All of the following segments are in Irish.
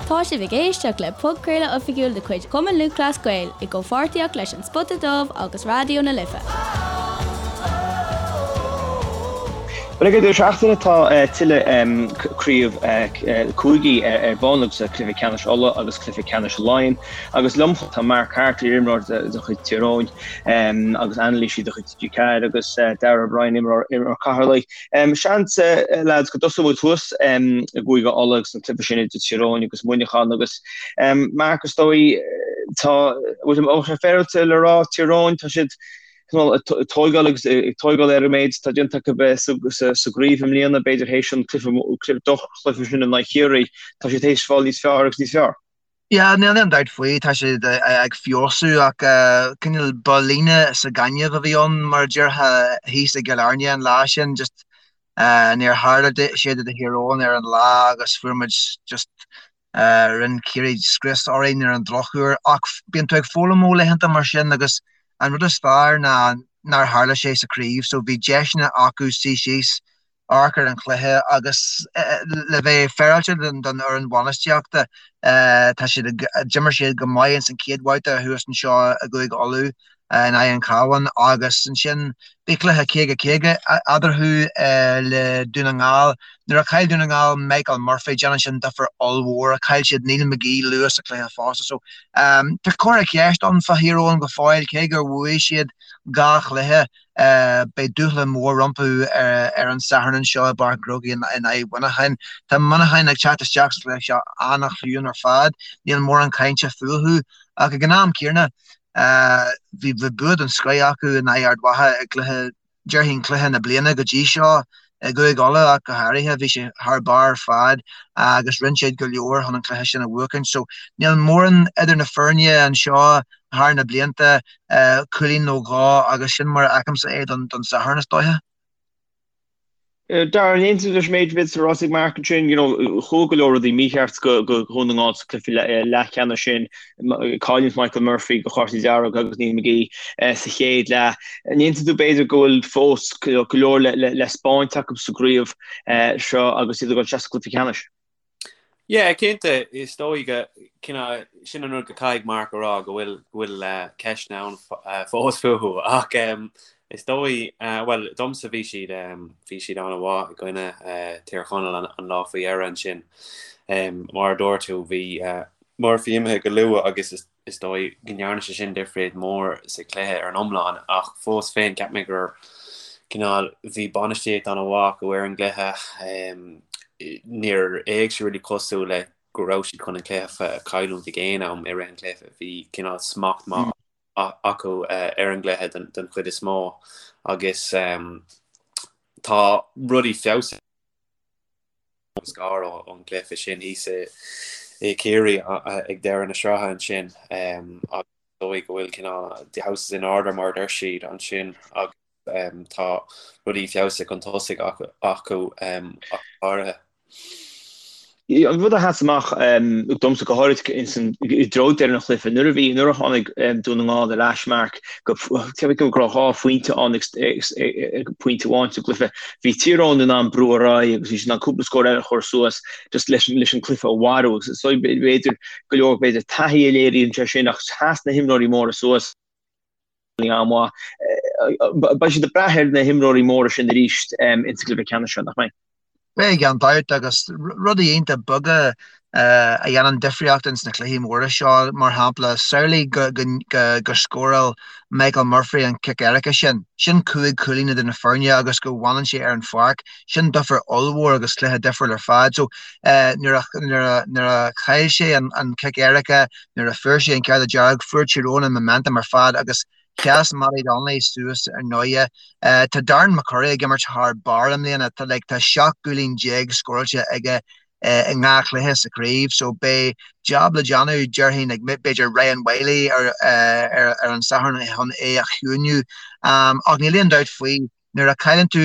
Tá sibh ag éisteacht le podchraoladh oifigiúil de chuid Chumann Lúthchleas Gael i gcomhpháirtíocht leis An Spota Dubh agus Raidió na Life. Bhuel, ag an deireadh seachtaine tá tuilleadh craobh cúigí ar bun agus cluiche ceannais Uladh agus cluiche ceannais Laighean. Agus liom tá Mark Harte, iarimreoir de chuid Tír Eoghain agus anailísí de chuid TG4 agus Darragh O'Brien, imreoir Cheatharlaigh. Seans, lads, go dtosóidh muid thuas i gCúige Uladh agus an cluiche sin idir Tír Eoghain agus Muineachán agus Mark, is dóigh, tá, bhfuil sé féaráilte le rá, Tír Eoghain, tá siad cineál ag tóigeáil agus ag tóigeáil ar an méid atá déanta acu sa gcraobh i mbliana, b'fhéidir théis an cluiche, droch-chluiche sin in aghaidh Chiarraí, tá siad théis fáil níos fearr agus níos fearr. Yeah, níl aon dabht faoi, tá siad ag feabhsú ach cineál ba líne sa ghaineamh a bhí ann mar a déarfá thíos i gCill Airne an lá sin, just níor tharla sé do Thír Eoghain ar an lá agus fuair muid just rinne Ciarraí scrios orainn ar an drochuair ach bíonn tú ag foghlaim ó laethanta mar sin agus an rud is fearr ná nár tharla sé sa chraobh so bhí deiseanna acu suí síos amharc ar an chluiche agus le bheith féaráilte don fhoireann bhainistíochta, tá siad ag, d'imir siad go maith ins an chéad bhabhta thuas anseo i gCúige Uladh in aghaidh an Chabháin agus ansin bhí cluiche 50-50 eadarthu le Dún na nGall. Nuair a chaill Dún na nGall Michael Murphy, déanann sin difear ollmhór. Chaill siad Neil McGee luath sa chluiche fosta so tá comhartha ceist ann fá Thír Eoghain go fóill cé gur bhuaigh siad dhá chluiche. Beidh dúshlán mór rompu ar an Satharn anseo i bPáirc an Chrócaigh in aghaidh Mhuineacháin. Tá Muineachán ag teacht isteach sa chluiche seo an-chiúin ar fad. Níl mórán cainte fúthu ach ag an am céanna bhí bua den scoith acu in aghaidh Ard Mhacha i gcluiche, déarfainn cluiche na bliana go dtí seo i gCúige Uladh ach go háirithe. Bhí sé thar barr ar fad agus rinne siad go leor chun an cluiche sin a bhuachaint. So níl mórán idir na foirne anseo thar na blianta, cúilín nó dhó agus sin mar a fheicimse é don Satharn is dóiche. Darragh, an aontaíonn tú leis an méid a bhí ráite ag Mark ansin, you know, chuaigh go leor rudaí mícheart go Dhún na nGall sa cluiche leathcheannais sin, cailliúint Michael Murphy do chártaí dearga agus Neil McGee sa chéad leath. An aontaíonn tú b'fhéidir go bhfuil fós go leor le 'spáint acu sa gcraobh seo agus iad ag dul isteach sa gcluiche ceannais? Yeah, cinnte, is dóigh go, cineál, sin an rud go caithfidh Mark a rá go bhfuil, go bhfuil ceisteanna ann fós fúthu ach is dóigh, bhuel, domsa bhí siad, bhí siad an-mhaith i gcoinne Tír Chonaill an lá faoi dheireadh ansin. Mar a dúirt tú, bhí Murphy imithe go luath agus is Is dóigh go ndearna sé sin difríocht mór sa chluiche ar an iomlán ach fós féin cheap mé gur cineál bhí bainistíocht an-mhaith acu ar an gcluiche. Níor fhéach sé really cosúil le go raibh siad chun an cluiche a chailliúint ag aon am i rith an chluiche. Bhí cineál smacht maith acu ar an gcluiche don chuid is mó agus tá rudaí feabhsaithe. Scar ón gcluiche sin thíos i Ciarraí ag deireadh na sraithe ansin agus is dóigh go bhfuil cineál the house is in order mar a deir siad ansin agus tá rudaí feabhsaithe chun tosaigh acu ach go háirithe. An rud a sheas amach domsa go háirid i dtreo deireadh an chluiche, nuair a bhí, nuair a tháinig Dún na nGall ar ais, Mark, go go raibh dhá phointe ann ag pointe amháin sa gcluiche, bhí Tír Eoghain in ann brú ar aghaidh agus bhí siad in ann cúpla scór eile a chur suas just leis leis an cluiche a mharú agus is b'fhéidir go leor b'fhéidir taithí a léiríonn sé sin ach sheas na himreoirí móra suas an-mhaith. Beidh siad ag brath ar na himreoirí móra sin arís insa gcluiche ceannais seo, nach mbeidh? Beidh gan dabht agus rudaí iontach beaga a dhéanann difríocht ins na cluichí móra seo, mar shampla, samhlaigh go scóráil Michael Murphy an cic éirice sin, sin 5 chúilín idir na foirne agus go bhfanann sé ar an pháirc, sin difear ollmhór agus cluiche difriúil ar fad. So nuair a chaill sé an cic éirice, Nuair a fuair sé an cárta dearg, fuair Tír Eoghain an momentum ar fad agus sheas Mattie Donnelly suas ar ndóighe. Tá Darren McCurry ag imirt thar barr i mbliana. Tá like tá 17 gcúilín scóráilte aige i ndhá chluiche sa chraobh so beidh jab le déanamh déarfainn ag b'fhéidir Ryan Wylie ar ar ar an Satharn chun é a chiúiniú. Ach níl aon dabht faoi nuair a chailleann tú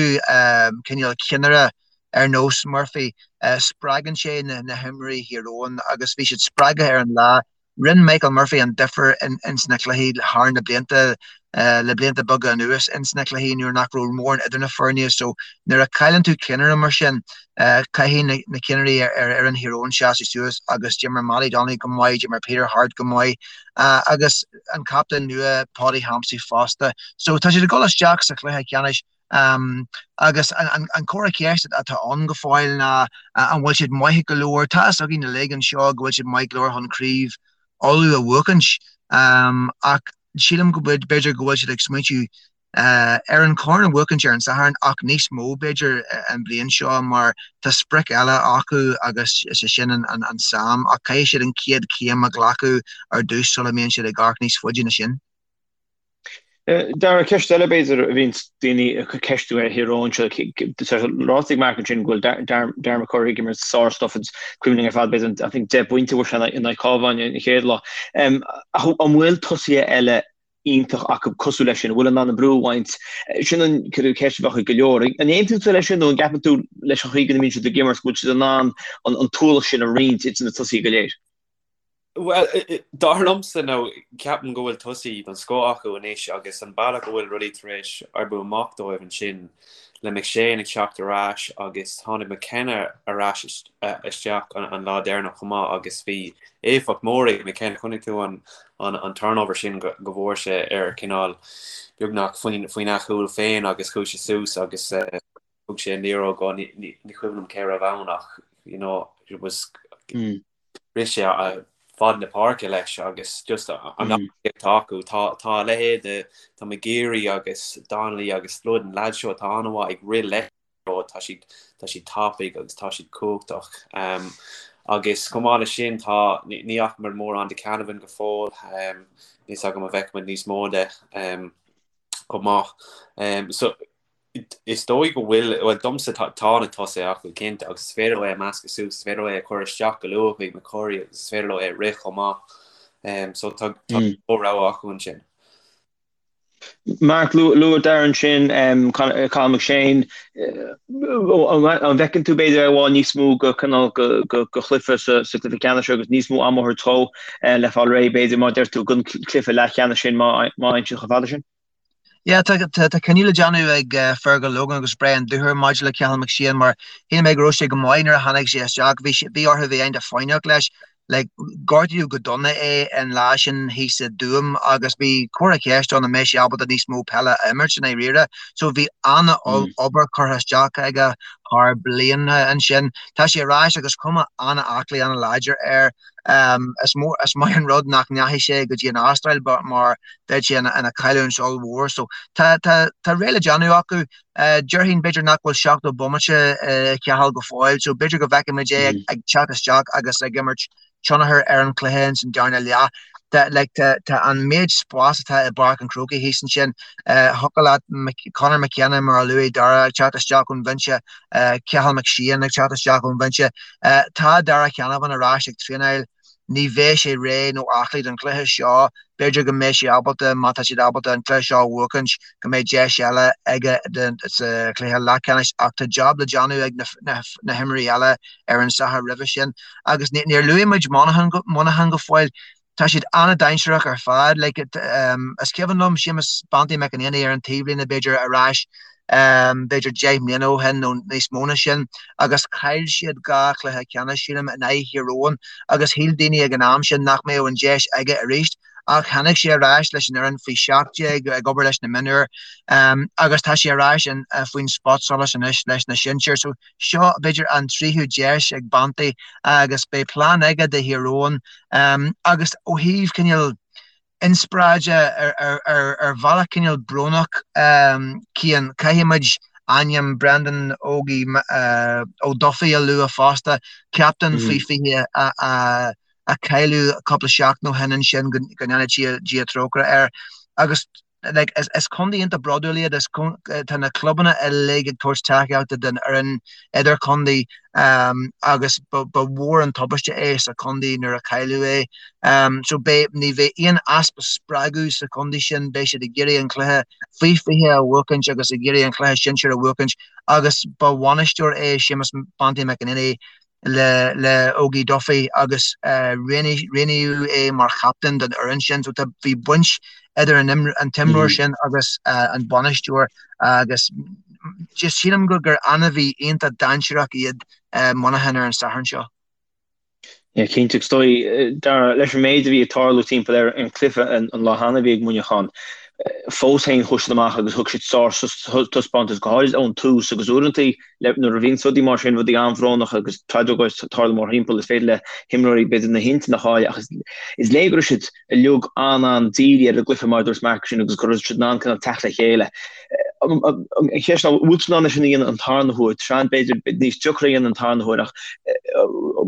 cineál ceannaire ar nós Murphy, spreagann sé na himreoirí Thír Eoghain agus bhí siad spreagtha ar an lá. Rinne Michael Murphy an difear ins na cluichí thar na blianta, le blianta beaga anuas ins na cluichí nuair nach raibh mórán idir na foirne so nuair a chailleann tú ceannaire mar sin, caithfidh na ceannairí ar fhoireann Thír Eoghain seasamh suas agus d'imir Mattie Donnelly go maith, d'imir Peter Harte go maith agus an captaen nua Paudie Hampsey fosta. So tá siad ag dul isteach sa chluiche ceannais Agus an comhartha ceiste atá ann go fóill ná an bhfuil siad maith go leor? Tá fhios againn uilig anseo go bhfuil siad maith go leor chun craobh Uladh a bhuachaint ach sílim go b'fhéidir go bhfuil siad ag smaointiú ar an chorn a bhuachaint ar an Satharn ach níos mó b'fhéidir an bhliain seo mar tá sprioc eile acu agus is é sin an Sam ach caithfidh siad an chéad chéim a ghlacadh ar dtús sula mbíonn siad ag amharc níos faide ná sin. Dara, ceist eile b'fhéidir a bhíonns daoine ag ceistiú ar Thír Eoghain seo, ráite ag Mark ansin go bhfuil Darren McCurry ag imirt sár-stuif agus cuimhin linn ar fad b'fhéidir I think 10 bpointe a fuair sé in aghaidh Cabháin an chéad lá. Ach an bhfuil tosaithe eile iontach acu cosúil leis sin, a bhfuil in ann an brú a bhaint? Sin an ceist a bheadh ag go leor. An aontaíonn tú leis sin nó an gceapann tú leis an chaoi go mbíonn siad ag imirt go bhfuil siad in ann an t-ualach sin a roinnt idir na tosaithe go léir? Bhuel, dar liomsa, nó ceapaim go bhfuil tosaí den scoth acu anois agus an bealach go bhfuil rudaí tar éis oibriú amach dóibh ansin le McShane ag teacht ar ais agus tháinig McKenna ar ais isteach an lá deireanach chomh maith agus bhí éifeacht mór ag McKenna. Chonaic tú an an turnover sin go bhfuair sé ar cineál beagnach faoin a chúl féin agus chuaigh sé suas agus thug sé an liathróid go, ní cuimhin liom cé raibh ann ach you know it was rith sé fad na páirce leis agus just an atá acu. Tá tá a leithéid de tá McGeary agus Donnelly agus Flood an leaid seo atá an-mhaith ag rith leis tá siad tá siad tapaidh agus tá siad cumhachtach. Um, agus chomh maith leis sin tá ní fhaca muid mórán de Canavan go fóill um, níl fhios agam an bhfeicfimid níos mó de um, chomh maith. Um, so Is dóigh go bhfuil, bhuel domsa tá na tosaithe acu cinnte agus is féidir leo é a mheascadh suas, is féidir leo é a chur isteach go luath chuig McCurry agus is féidir leo é a rith chomh maith. So tá rogha acu ansin. Mark, luaigh Darren ansin Cathal McShane, an bhfeiceann tú b'fhéidir é i bhfad níos mó go cineál go chluiche sa chluiche ceannais agus níos mó ama a thabhairt dó le fáil réidh b'fhéidir mar a deir tú don chluiche leathcheannais sin má fhaigheann siad chomh fada sin? Yeah, tá tá cinneadh le déanamh ag Fergal Logan agus Brian Dooher maidir le Cathal McShane mar shíl mé go raibh sé go maith nuair a tháinig sé isteach. Bhí sé, bhí orthu bheith an-fhoighneach leis. Like, gortaíodh go dona é an lá sin thíos i dTuaim agus bhí comhartha ceiste ann an mbeidh sé ábalta níos mó peile a imirt i ndáiríre. So bhí an-obair curtha isteach aige thar bliana ansin. Tá sé ar ais agus cuma an-aclaí, an-láidir air. Is mór, is maith an rud nach ndeachaigh sé go dtí an Astráil mar bheadh sé ina chailliúint ollmhór. So tá, tá, tá réidh le déanamh acu. Déarfainn b'fhéidir nach bhfuil 70 bomaite i Cathal go fóill so b'fhéidir go bhfeicfimid é ag teacht isteach agus ag imirt tionchar ar an chluiche ins an darna leath. Tá, like, tá, tá an méid spás atá i bPáirc an Chrócaigh thíos ansin, thiocfadh leat Conor McKenna mar a luaigh Dara ag teacht isteach ón bhinse, Cathal McShane ag teacht isteach ón bhinse. Tá Darragh Canavan ar ais ag traenáil. Ní bheidh sé réidh nó aclaí don chluiche seo. B'fhéidir go mbeidh sé ábalta, má tá siad ábalta an cluiche seo a bhuachaint, go mbeidh deis eile aige sa chluiche leathcheannais ach tá jab le déanamh ag na himreoirí eile ar an Satharn roimhe sin. Agus níor luaigh muid Muineachán go fóill. Tá siad an-dainséarach ar fad. Like, is cuimhin liom Séamus Banty McEnaney ar an taobhlíne b'fhéidir ar ais b'fhéidir 10 mbliana ó shin nó níos mó ná sin agus chaill siad dhá chluiche ceannais sílim in aghaidh Thír Eoghain agus shíl daoine ag an am sin nach mbeadh an deis aige arís ach tháinig sé ar ais leis an fhoireann faoi 17 ag obair leis na mionúir agus tá sé ar ais faoin spotsolas anois leis na sinsir. So seo b'fhéidir an tríú deis ag Banty agus beidh plean aige do Thír Eoghain agus ó thaobh cineál inspioráide ar bhealach cineál brónach Cian, caithfidh muid ainm Brendan Ógie Ó Dufaigh a lua fosta, captaen faoi 20 a cailleadh cúpla seachtain ó shin ansin, go ndéana Dia trócaire air. Agus like, is, is contae iontach bródúil iad, is, tá na clubanna uilig ag tabhairt tacaíochta don fhoireann idirchontae um, agus ba, ba mhór an tubaiste é sa chontae nuair a cailleadh é. Um, so beidh, ní bheidh aon easpa spreagadh sa chontae sin, beidh siad ag iarraidh an cluiche faoi 20 a bhuachaint agus ag iarraidh an cluiche sinsir a bhuachaint agus ba bhainisteoir é Séamus Banty McEnaney. Le le Ógie Duffy agus roghnaíodh é mar chaptaen don fhoireann sin. So tá bhí baint idir an an t-imreoir sin agus an bainisteoir agus just sílim gur gur ainmhí iontach dainséarach iad Muineachán ar an Satharn seo. Yeah, cinnte. Is dóigh, Dara, leis an méid a bhí ag tarlú timpeall ar an chluiche an lá cheana a bhí ag Muineachán, fós féin chuaigh siad amach agus thug siad sár-taispeántas, go háirid ón tús agus uaireanta nuair a bhíonn rudaí mar sin, rudaí an-bhrónach agus tragóid ag tarlú mórthimpeall, is féidir le himreoirí b'fhéidir na hintinn a chailleadh ach is léir go raibh siad uilig an-an-dírithe ar an gcluiche mar a dúirt Mark sin agus go raibh siad in ann cineál teacht le chéile. An cheist ná, bhfuil siad in ann é sin a dhéanamh an tarna huair? Tá sé b'fhéidir níos deacra a dhéanamh an tarna huair ach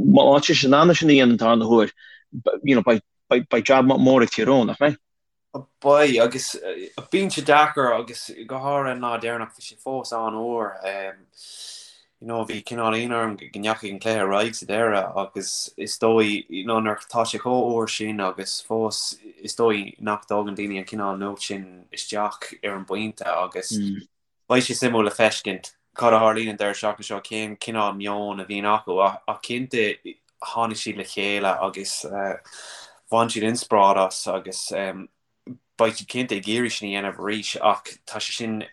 má tá siad in ann é sin a dhéanamh an tarna huair, you know, beidh jab mór ag Tír Eoghain, nach mbeidh? Beidh, agus bíonn sé deacair agus go háirithe an lá deireanach bhí sé fós an-fhuar. You know, bhí cineál ionadh orm go ndeachaigh an cluiche ar aghaidh sa deireadh agus is dóigh, you know, nuair atá sé chomh fhuar sin agus fós is dóigh nach dtógann daoine an cineál nuacht sin isteach ar an bpointe agus Beidh sé suimiúil le feiscint cad a tharlaíonn an deireadh seachtaine seo, cén cineál meon a bhíonn acu ach cinnte tháinig siad le chéile agus bhain siad inspioráid as agus beidh siad cinnte ag iarraidh sin a dhéanamh arís ach tá sé sin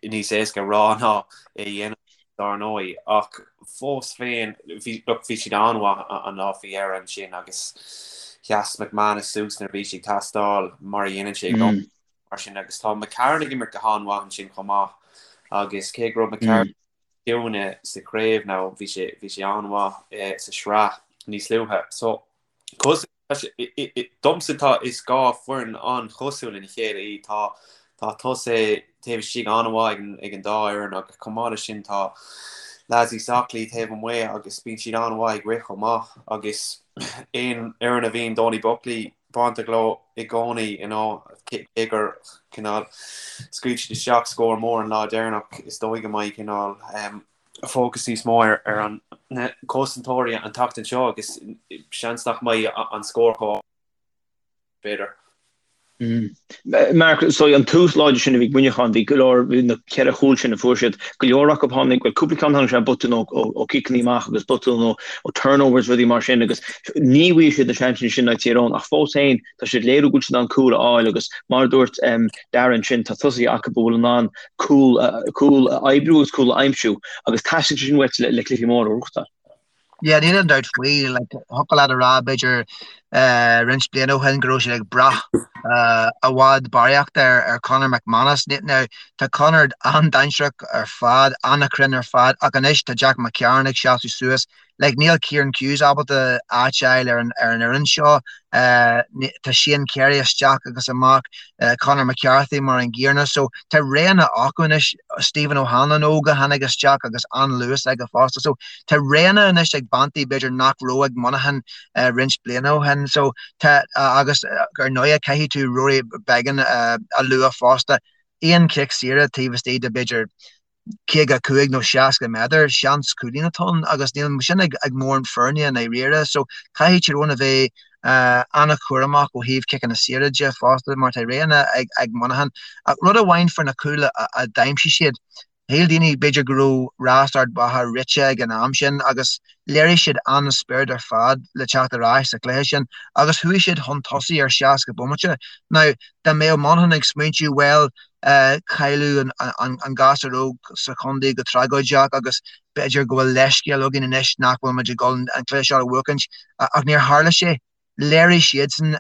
níos éasca a rá ná é a dhéanamh dar ndóigh ach fós féin bhí look bhí siad an-mhaith an lá faoi dheireadh ansin agus sheas McManus suas nuair a bhí sé ag teastáil mar a dhéanann sé i gcónaí. mar sin agus tá McCarron ag imirt go han-mhaith ansin chomh maith agus cé go raibh McCarron ciúin sa chraobh now bhí sé bhí sé an-mhaith sa sraith níos luaithe. So domsa tá is 2 foireann an-chosúil lena chéile í tá tá tosaithe taobh istigh an-mhaith ag an ag an dá fhoireann agus chomh maith leis sin tá lads níos aclaí taobh amuigh agus bíonn siad an-mhaith ag rith chomh maith agus aon fhoireann a bhíonn Donie Buckley bainteach leo i gcónaí, you know, cé gur cineál scaoil siad isteach scór mór an lá deireanach, is dóigh go mbeidh cineál fócas níos mó ar ar an na cosantóirí an tseachtain seo agus seans nach mbeidh an scór chomh b'fhéidir. Mark, so an tús láidir sin a bhí ag Muineachán, bhí go leor, bhí na ceithre chúl sin a fuair siad, go leor acu tháinig, bhuel cúpla ceann tháinig sé botún ó ó ciceanna amach agus botún ó ó turnovers rudaí mar sin agus ní bhfuair siad na seansanna sin ag Tír Eoghain ach fós féin tá siad ag léiriú go bhfuil siad in ann cúl a fháil agus mar a dúirt Darren sin tá tosaithe acu a bhfuil in ann cúl cúl a oibriú agus cúl a aimsiú agus teastaíonn sé sin uait le le cluichí móra a ghnóthachtáil. Yeah, níl aon dabht faoi, like, thiocfadh leat a rá b'fhéidir roinnt bliana ó shin go raibh siad ag brath i bhfad barraíocht ar ar Conor McManus. Now, tá Conor an-dainséarach ar fad, an-chruinn ar fad, ach anois tá Jack McCarron ag seasamh suas. Like, níl Kieran Hughes ábalta áit a fháil ar an ar an fhoireann seo. Tá Shane Carey isteach agus amach, Conor McCarthy mar an gcéanna. So, tá roghanna acu anois, Stephen O'Hanlon óg a tháinig isteach agus an-luas aige fosta. So, Tá roghanna anois ag Banty b'fhéidir nach raibh ag Monaghan roinnt bliana ó shin. So tá, agus ar ndóigh caithfidh tú Rory Beggan a lua fosta. Aon chic saoire taobh istigh de b'fhéidir 55 nó 60 méadar, seans cúilín atá ann agus níl sin ag mórán foirne i ndáiríre. So caithfidh Tír Eoghain a bheith an-chúramach ó thaobh ciceanna saoire de fosta mar tá roghanna ag Monaghan. Ach rud amháin faoi na cúil a d'aimsigh siad, Shíl daoine b'fhéidir go raibh rás Ard Mhacha rite ag an am sin agus léirigh siad an-spiorad ar fad le teacht ar ais sa chluiche sin agus chuaigh siad chun tosaigh ar 60 bomaite. Now, dá mbeadh Monaghan ag smaointiú, bhuel, cailleadh an gasúr óg sa chontae go tragóideach agus b'fhéidir go bhfuil leithscéal againn anois nach bhfuil muid ag dul an cluiche seo a bhuachaint ach níor tharla sé. Léirigh siadsan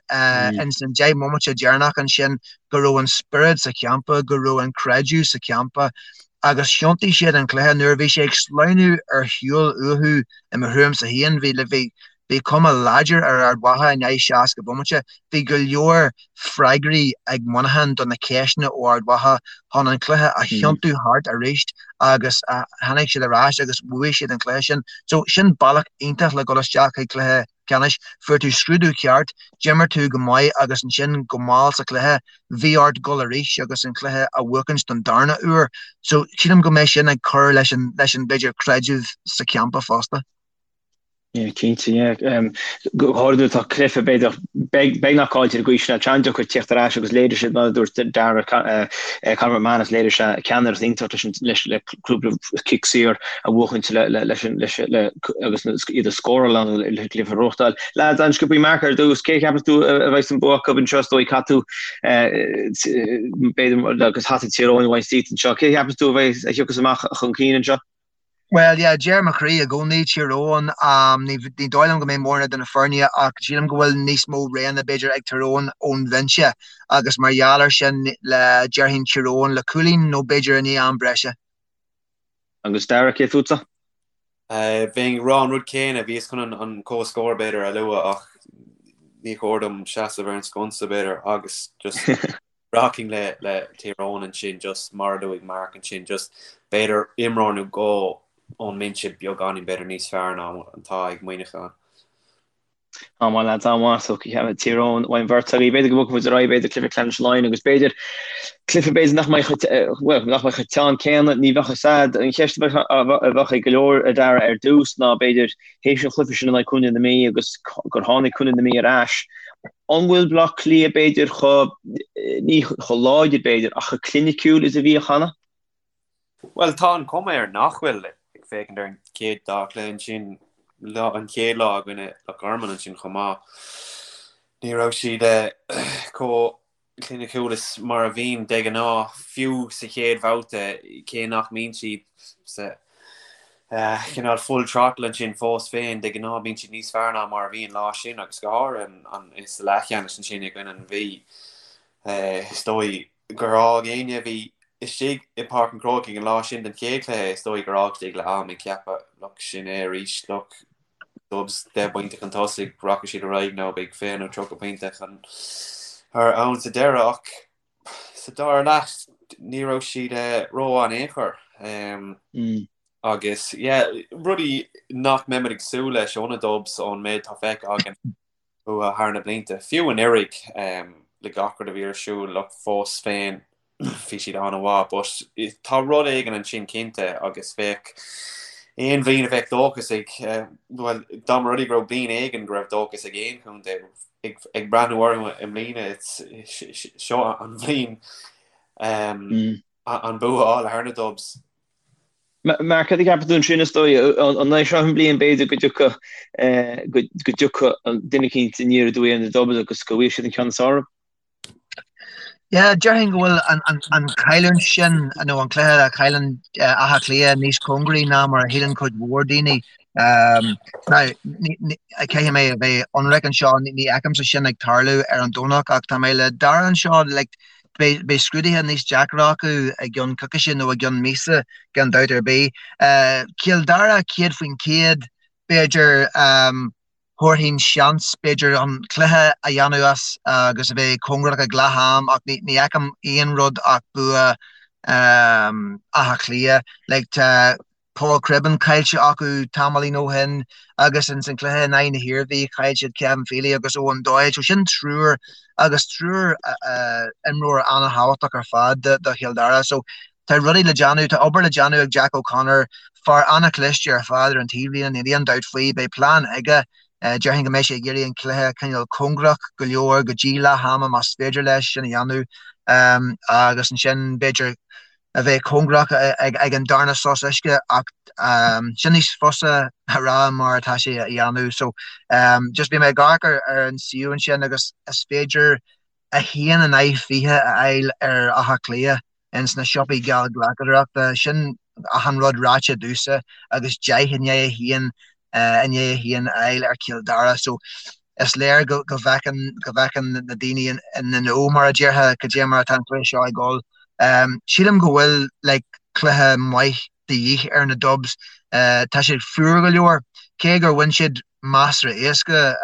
ins an 10 mbomaite deireanach ansin go raibh an spiorad sa champa, go raibh an creideamh sa champa agus thiontaigh siad an cluiche. Nuair a bhí sé ag sleamhnú ar shiúl uathu i mo thuairimse féin, bhí bhí bhí cuma láidir ar Ard Mhacha i ndiaidh 60 bomaite. Bhí go leor freagraí ag Muineachán do na ceisteanna ó Ard Mhacha chun an cluiche a thiontú thart arís agus tháinig siad ar ais agus bhuaigh siad an cluiche sin. So sin bealach iontach le dul isteach chuig cluiche ceannais. Fuair tú scrúdú ceart, d'imir tú go maith agus ansin go mall sa chluiche, bhí ort dul arís agus an cluiche a bhuachaint don darna uair. So sílim go mbeidh sin ag cur leis an, leis an, b'fhéidir, creideamh sa champa fosta. Yeah, cinnte, yeah. Go háirithe nuair atá cluiche, b'fhéidir, beagnach caillte ar an gcaoi sin, an deacair tíocht ar ais agus léirigh siad, mar a dúirt Dara, Conor McManus, léirigh sé ceannaireacht iontach leis an, leis, le cúpla cic saor a bhuachaint le, le, leis an, leis, le, agus iad a scóráil ann le cluiche a ghnóthachtáil. Lads, an-sciobthaí Mark ar dtús, cé a cheapas tú a bheidh an bua acu anseo, is dóigh caithfidh tú, b'fhéidir, agus hata Tír Eoghain a bhaint díot anseo, cé a cheapas tú a bheidh, a thiocfas amach chun cinn anseo? Bhuel, yeah, deir mo chroí i gcónaí Tír Eoghain. Ní dóigh liom go mbeidh mórán de na foirne ach sílim go bhfuil níos mó roghanna b'fhéidir ag Tír Eoghain ón bhinse agus mar gheall ar sin le déarfainn Tír Eoghain le cúilín nó b'fhéidir i ndiaidh am breise. Agus Dara, cé fútsa? Bheinn ag rá an rud céanna, bhíos chun an comhscór b'fhéidir a lua ach ní chóir dom seasamh ar an sconsa b'fhéidir agus just Rachainn le le Tír Eoghain ansin just mar a luaigh Mark ansin just b'fhéidir imreoir nó dhó ón mbinse beagáinín b'fhéidir níos fearr ná atá ag Muineachán. An-mhaith lads, an-mhaith. So Tír Eoghain ón mbeirt agaibh. B'fhéidir go mbogfaidh muid ar aghaidh, b'fhéidir cluiche ceannais Laighean agus b'fhéidir cluiche b'fhéidir nach mbeidh chomh, bhuel, nach mbeidh chomh teann céanna, ní bheadh fhios a'd. An cheist a bheadh ag go leor a Dara ar dtús ná b'fhéidir théis an chluiche sin in aghaidh Contae na Mí agus gur tháinig Contae na Mí ar ais, An bhfuil Bleá Cliath b'fhéidir chomh, ní chomh láidir b'fhéidir, ach chomh cliniciúil is a bhíodh cheana? Bhuel, tá an chuma air nach bhfuil, ag féachaint ar an chéad dá chluiche ansin, lá, an chéad lá i gcoinne Loch Garman ansin chomh maith, ní raibh siad chomh cliniciúil is mar a bhíonn de ghnáth, fiú sa chéad bhabhta, cé nach mbíonn siad sa chineál full throttle ansin fós féin, de ghnáth bíonn siad níos fearr ná mar a bhí an lá sin agus go háirithe sa leathcheannais ansin i gcoinne an Mhí. Is dóigh gur fhág éinne a bhí istigh i bPáirc an Chrócaigh an lá sin den chéad chluiche, is dóigh gur fhág siad ag leath am ag ceapadh, look, sin é arís, look, Dubs 10 bpointe chun tosaigh, rachaidh siad ar aghaidh nó beidh 20 nó 30 pointe chun ann sa deireadh ach sa dara leath ní raibh siad rómhaith in aon chor. Agus yeah, rudaí nach mbeimid ag súil leis ó na Dubs ón méid atá feicthe againn uathu thar na blianta, fiú anuraidh le gach rud a bhí ar siúl, look, fós féin bhí siad an-mhaith but tá rud éigin ansin cinnte agus bheadh aon bhliain a bheadh dóchas ag, bhuel, dá mba rud é go raibh bliain éigin go raibh dóchas ag aon chontae ag breathnú orthu i mbliana, seo an bhliain an bua a fháil thar na Dubs. Mark, cad a cheapann tú ansin, is dóigh, an é seo an bhliain b'fhéidir go dtiocfadh go dtiocfadh duine eicínt aniar aduaidh ar na Dubs agus go bhfaighidh siad an ceann is fearr orthu? Yeah, déarfainn go bhfuil an chailliúint sin nó an cluiche a chailleann Áth Cliath níos cóngaraí ná mar a shíleann cuid mhór daoine. Now, caithfidh mé a bheith ionraic anseo, ní fheicimse sin ag tarlú ar an Domhnach ach tá mé le Dara anseo, like, beidh scrúduithe níos deacra acu i gceann coicíse nó i gceann míosa gan dabht ar bith. Cill Dara 100%, b'fhéidir, Thabharfainn seans, b'fhéidir, an cluiche a dhéanamh as agus a bheith cóngarach ag leath am ach ní fheicim aon rud ach bua Átha Cliath. Like tá Paul Cribbin caillte acu tamaillín ó shin agus ins an cluiche in aghaidh na hIarmhí chaill siad Kevin Feely agus Eoin Doyle. So sin triúr agus triúr imreoir an-thábhachtach ar fad do Chill Dara. So tá rudaí le déanamh, tá obair le déanamh ag Jack O'Connor, fear an-chliste ar fad ar an taobhlíne, níl aon dabht faoi. Beidh plean aige. Déarfainn go mbeidh sé ag iarraidh an cluiche a choinneáil cóngarach go leor go dtí leath ama más féidir leis sin a dhéanamh agus ansin b'fhéidir a bheith cóngarach ag an darna sos uisce ach sin níos fusa a rá mar atá sé a dhéanamh. So just beidh mé ag amharc ar an suíomh ansin agus is féidir 1 in aghaidh 20 a fháil ar Áth Cliath. ins na siopaí geallghlacadóireachta. Sin achan rud ráite domhsa agus 10 i ndiaidh 1 i ndiaidh 1 a fháil ar Chill Dara. So is léir go go bhfeiceann go bhfeiceann na daoine in the know mar a déarfá cad é mar atá an cluiche seo ag dul. Sílim go bhfuil like cluiche maith de dhíth ar na Dubs. Tá siad fuar go leor. Cé gur bhain siad measartha éasca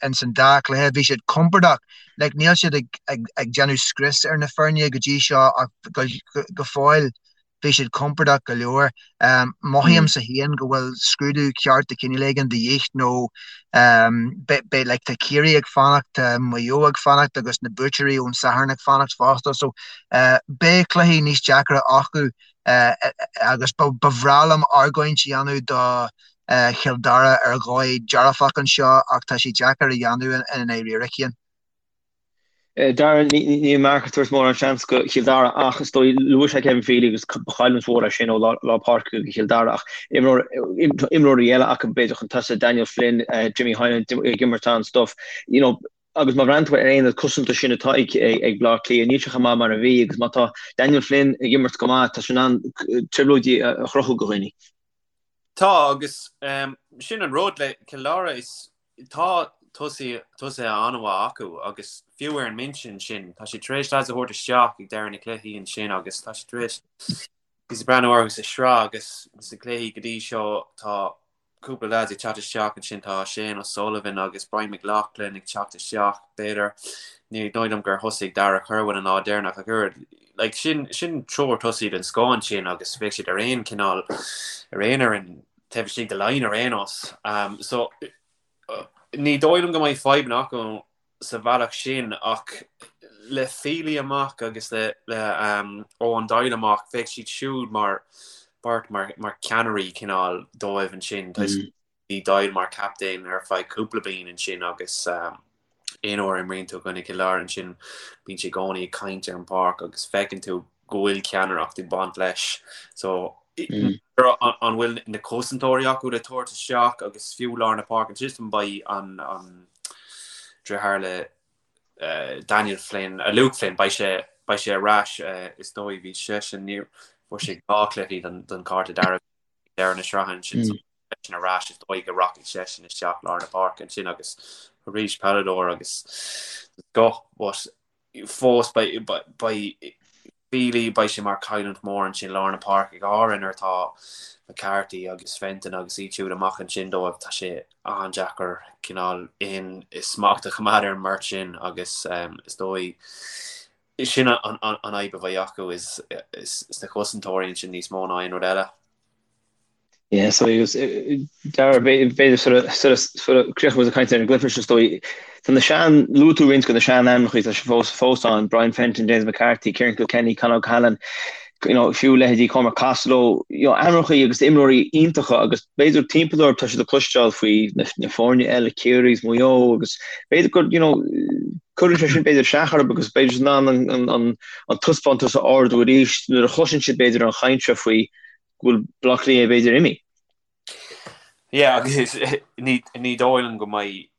ins an dá chluiche, bhí siad compordach. Like, níl siad ag, ag, ag déanamh scrios ar na foirne go dtí seo ach go, go fóill bhí siad compordach go leor. Mothaímsa féin go bhfuil scrúdú ceart de chineál éigin de dhíth nó beidh, like, tá Ciarraí ag fanacht, tá Maigh Eo ag fanacht agus na buaiteoirí ón Satharn ag fanacht fosta. So beidh cluichí níos deacra acu agus ba bhreá liom argóint a dhéanamh do. Chill Dara ar dhóigh dearfach anseo ach tá sé deacair a dhéanamh i ndáiríre, Cian. Dara, níl Mark ag tabhairt mórán seans go Chill Dara ach is dóigh, luaigh sé Kevin Feely agus ba chailliúint mhór é sin ó lár páirce go Chill Dara ach imreoirí eile acu b'fhéidir chun tosaigh, Daniel Flynn, Jimmy Hyland ag imirt an-stuif, you know, agus má bhreathnaíonn tú ar an aonad cosanta sin atá ag Baile Átha Cliath, níl sé chomh maith mar a bhí agus má tá Daniel Flynn ag imirt go maith, tá sé in ann trioblóidí a chruthú go dhaoine. Tá, agus sin an rud le Cill Dara, is tá tosaithe an-mhaith acu agus fiú ar an mbinse ansin, tá siad tar éis lads a thabhairt isteach ag deireadh na cluichí ansin agus tá siad tar éis, bhíos ag breathnú orthu sa sraith agus sna cluichí go dtí seo tá cúpla lads ag teacht isteach ansin, tá Shane O'Sullivan agus Brian McLaughlin ag teacht isteach, b'fhéidir. Ní dóigh liom gur thosaigh Darragh Kirwan an lá deireanach ach oiread. Like, sin, sin triúr tosaí den scoth ansin agus bheadh siad ar aon cineál, ar aon fhoireann taobh istigh de Laighin ar aon nós. Um, so, ní dóigh liom go mbeidh fadhbanna acu sa bhealach sin ach le Feely amach agus le le um, Eoin Doyle amach, bheadh siad siúd mar beirt mar, mar ceannairí cineál dóibh ansin. Mm. Bhí Doyle mar captaen ar feadh cúpla bliain ansin agus um, aon uair a imríonn tú i gcoinne Chill Dara ansin bíonn sé i gcónaí ag caint ar an bpáirc agus feiceann tú go bhfuil ceannaireacht ag baint leis. So mm. an bhfuil na cosantóirí acu le tabhairt isteach agus fiú lár na páirce ansin beidh an an deartháir le uh, Daniel Flynn, uh, Luke Flynn, beidh sé beidh sé ar ais uh, is dóigh bhí seisean ní fuair sé dhá cluichí den, den cárta dearg deireadh na sraithe ansin mm. so seisean ar ais is dóigh go rachaidh seisean isteach lár na páirce ansin agus arís peileadóir agus go but fós beidh Feely, beidh sé mar chailliúint mhór ansin lár na páirce, go háirithe nuair atá McCarthy agus Fenton agus iad siúd amach ansin dóibh, tá sé an-deacair cineál aon smacht a choimeád ar an mbeirt sin agus is dóigh sin an fhadhb a bheidh acu is sna cosantóirí ansin níos mó ná aon rud eile. Yeah, so agus Dara, b'fhéidir sort of, sort of, sort of críochnóidh muid ag caint ar an gcluiche seo is dóigh. Tá na sean, luaigh tú roinnt de na sean-ainmneacha, tá siad fós, fós ann, Brian Fenton, James McCarthy, Ciarán Kilkenny, Con O'Callaghan, you know, fiú leithéidí Cormac Costello, you know, ainmneacha agus imreoirí iontacha agus b'fhéidir timpeall orthu tá siad ag cloisteáil faoi na, na foirne eile, Ciarraí is Maigh Eo agus b'fhéidir gur, you know, cuireann sé sin b'fhéidir isteach orthu agus b'fhéidir in ann an, an, an, an taispeántas a ardú arís nuair a chloiseann siad b'fhéidir an chaint seo faoi go bhfuil Baile Átha Cliath b'fhéidir imithe. Yeah, agus ní ní dóigh liom go mbeidh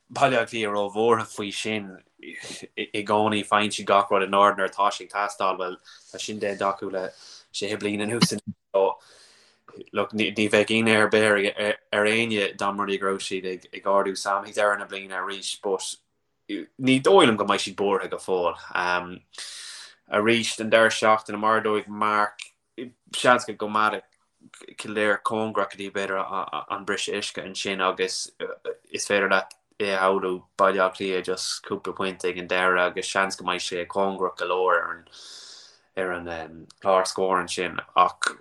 Baile Átha Cliath róbhuartha faoi sin i gcónaí. Faigheann siad gach rud in ord nuair atá sé ag teastáil. Bhuel, tá sin déanta acu le sé bliana anuas anois. So, look, ní ní bheadh ionadh ar bith ar ar éinne dá mba rud é go raibh siad ag ag ardú Sam ag deireadh na bliana arís, but ní dóigh liom go mbeidh siad buartha go fóill. Arís, an deireadh seachtaine, mar a dúirt Mark, seans go gcoimeádfaidh Kildare cóngarach go dtí b'fhéidir an briseadh uisce ansin agus is féidir leat é a shamhlú Baile Átha Cliath just cúpla pointe ag an deireadh agus seans go mbeidh sé cóngarach go leor ar an ar an chlár scóir ansin ach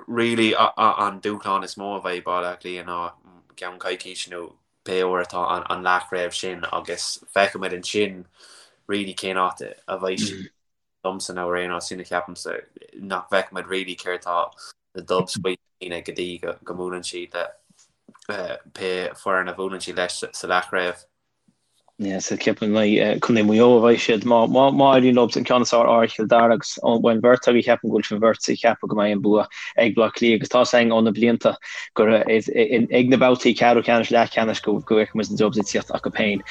really an dúshlán is mó a bheidh Baile Átha Cliath ná i gceann coicíse nó pé uair atá an leathchraobh sin agus feicfimid ansin really cén áit a bheidh siad. Domsa nó ar aon nós, sin a cheapaimse, nach bhfeicfimid really céard tá na Dubs faoi go dtí go mbuaileann siad le pé foireann a bhuaileann siad leis sa leathchraobh. Yeah, so ceapaim Contae Mhaigh Eo a bheidh siad má má éiríonn leo an ceann is fearr ar Chill Dara agus ón bheirt agaibh ceapaim go bhfuil sibh beirt ag ceapadh go mbeidh an bua ag Baile Átha Cliath agus tá a fhios againn ó na blianta gur ag na babhtaí ceathrú ceannais, leathcheannais go bhfeicfidh muid na Dubs ag tíocht acu féin.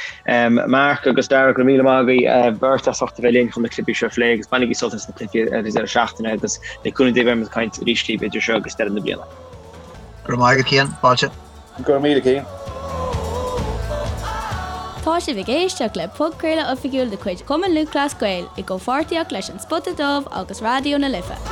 Mark agus Dara, go raibh míle maith agaibh beirt as ucht a bheith linn chun na cluichí seo a phlé agus bainigí sult as na cluichí ar an deireadh seachtaine agus le cúnamh Dé beidh muid ag caint arís libh idir seo agus deireadh na bliana. Go raibh maith agat Cian, fáilte. Go raibh míle Cian. Tá sibh ag éisteacht le podchraoladh oifigiúil de chuid Chumann Lúthchleas Gael i gcomhpháirtíocht leis An Spota Dubh agus Raidió na Life.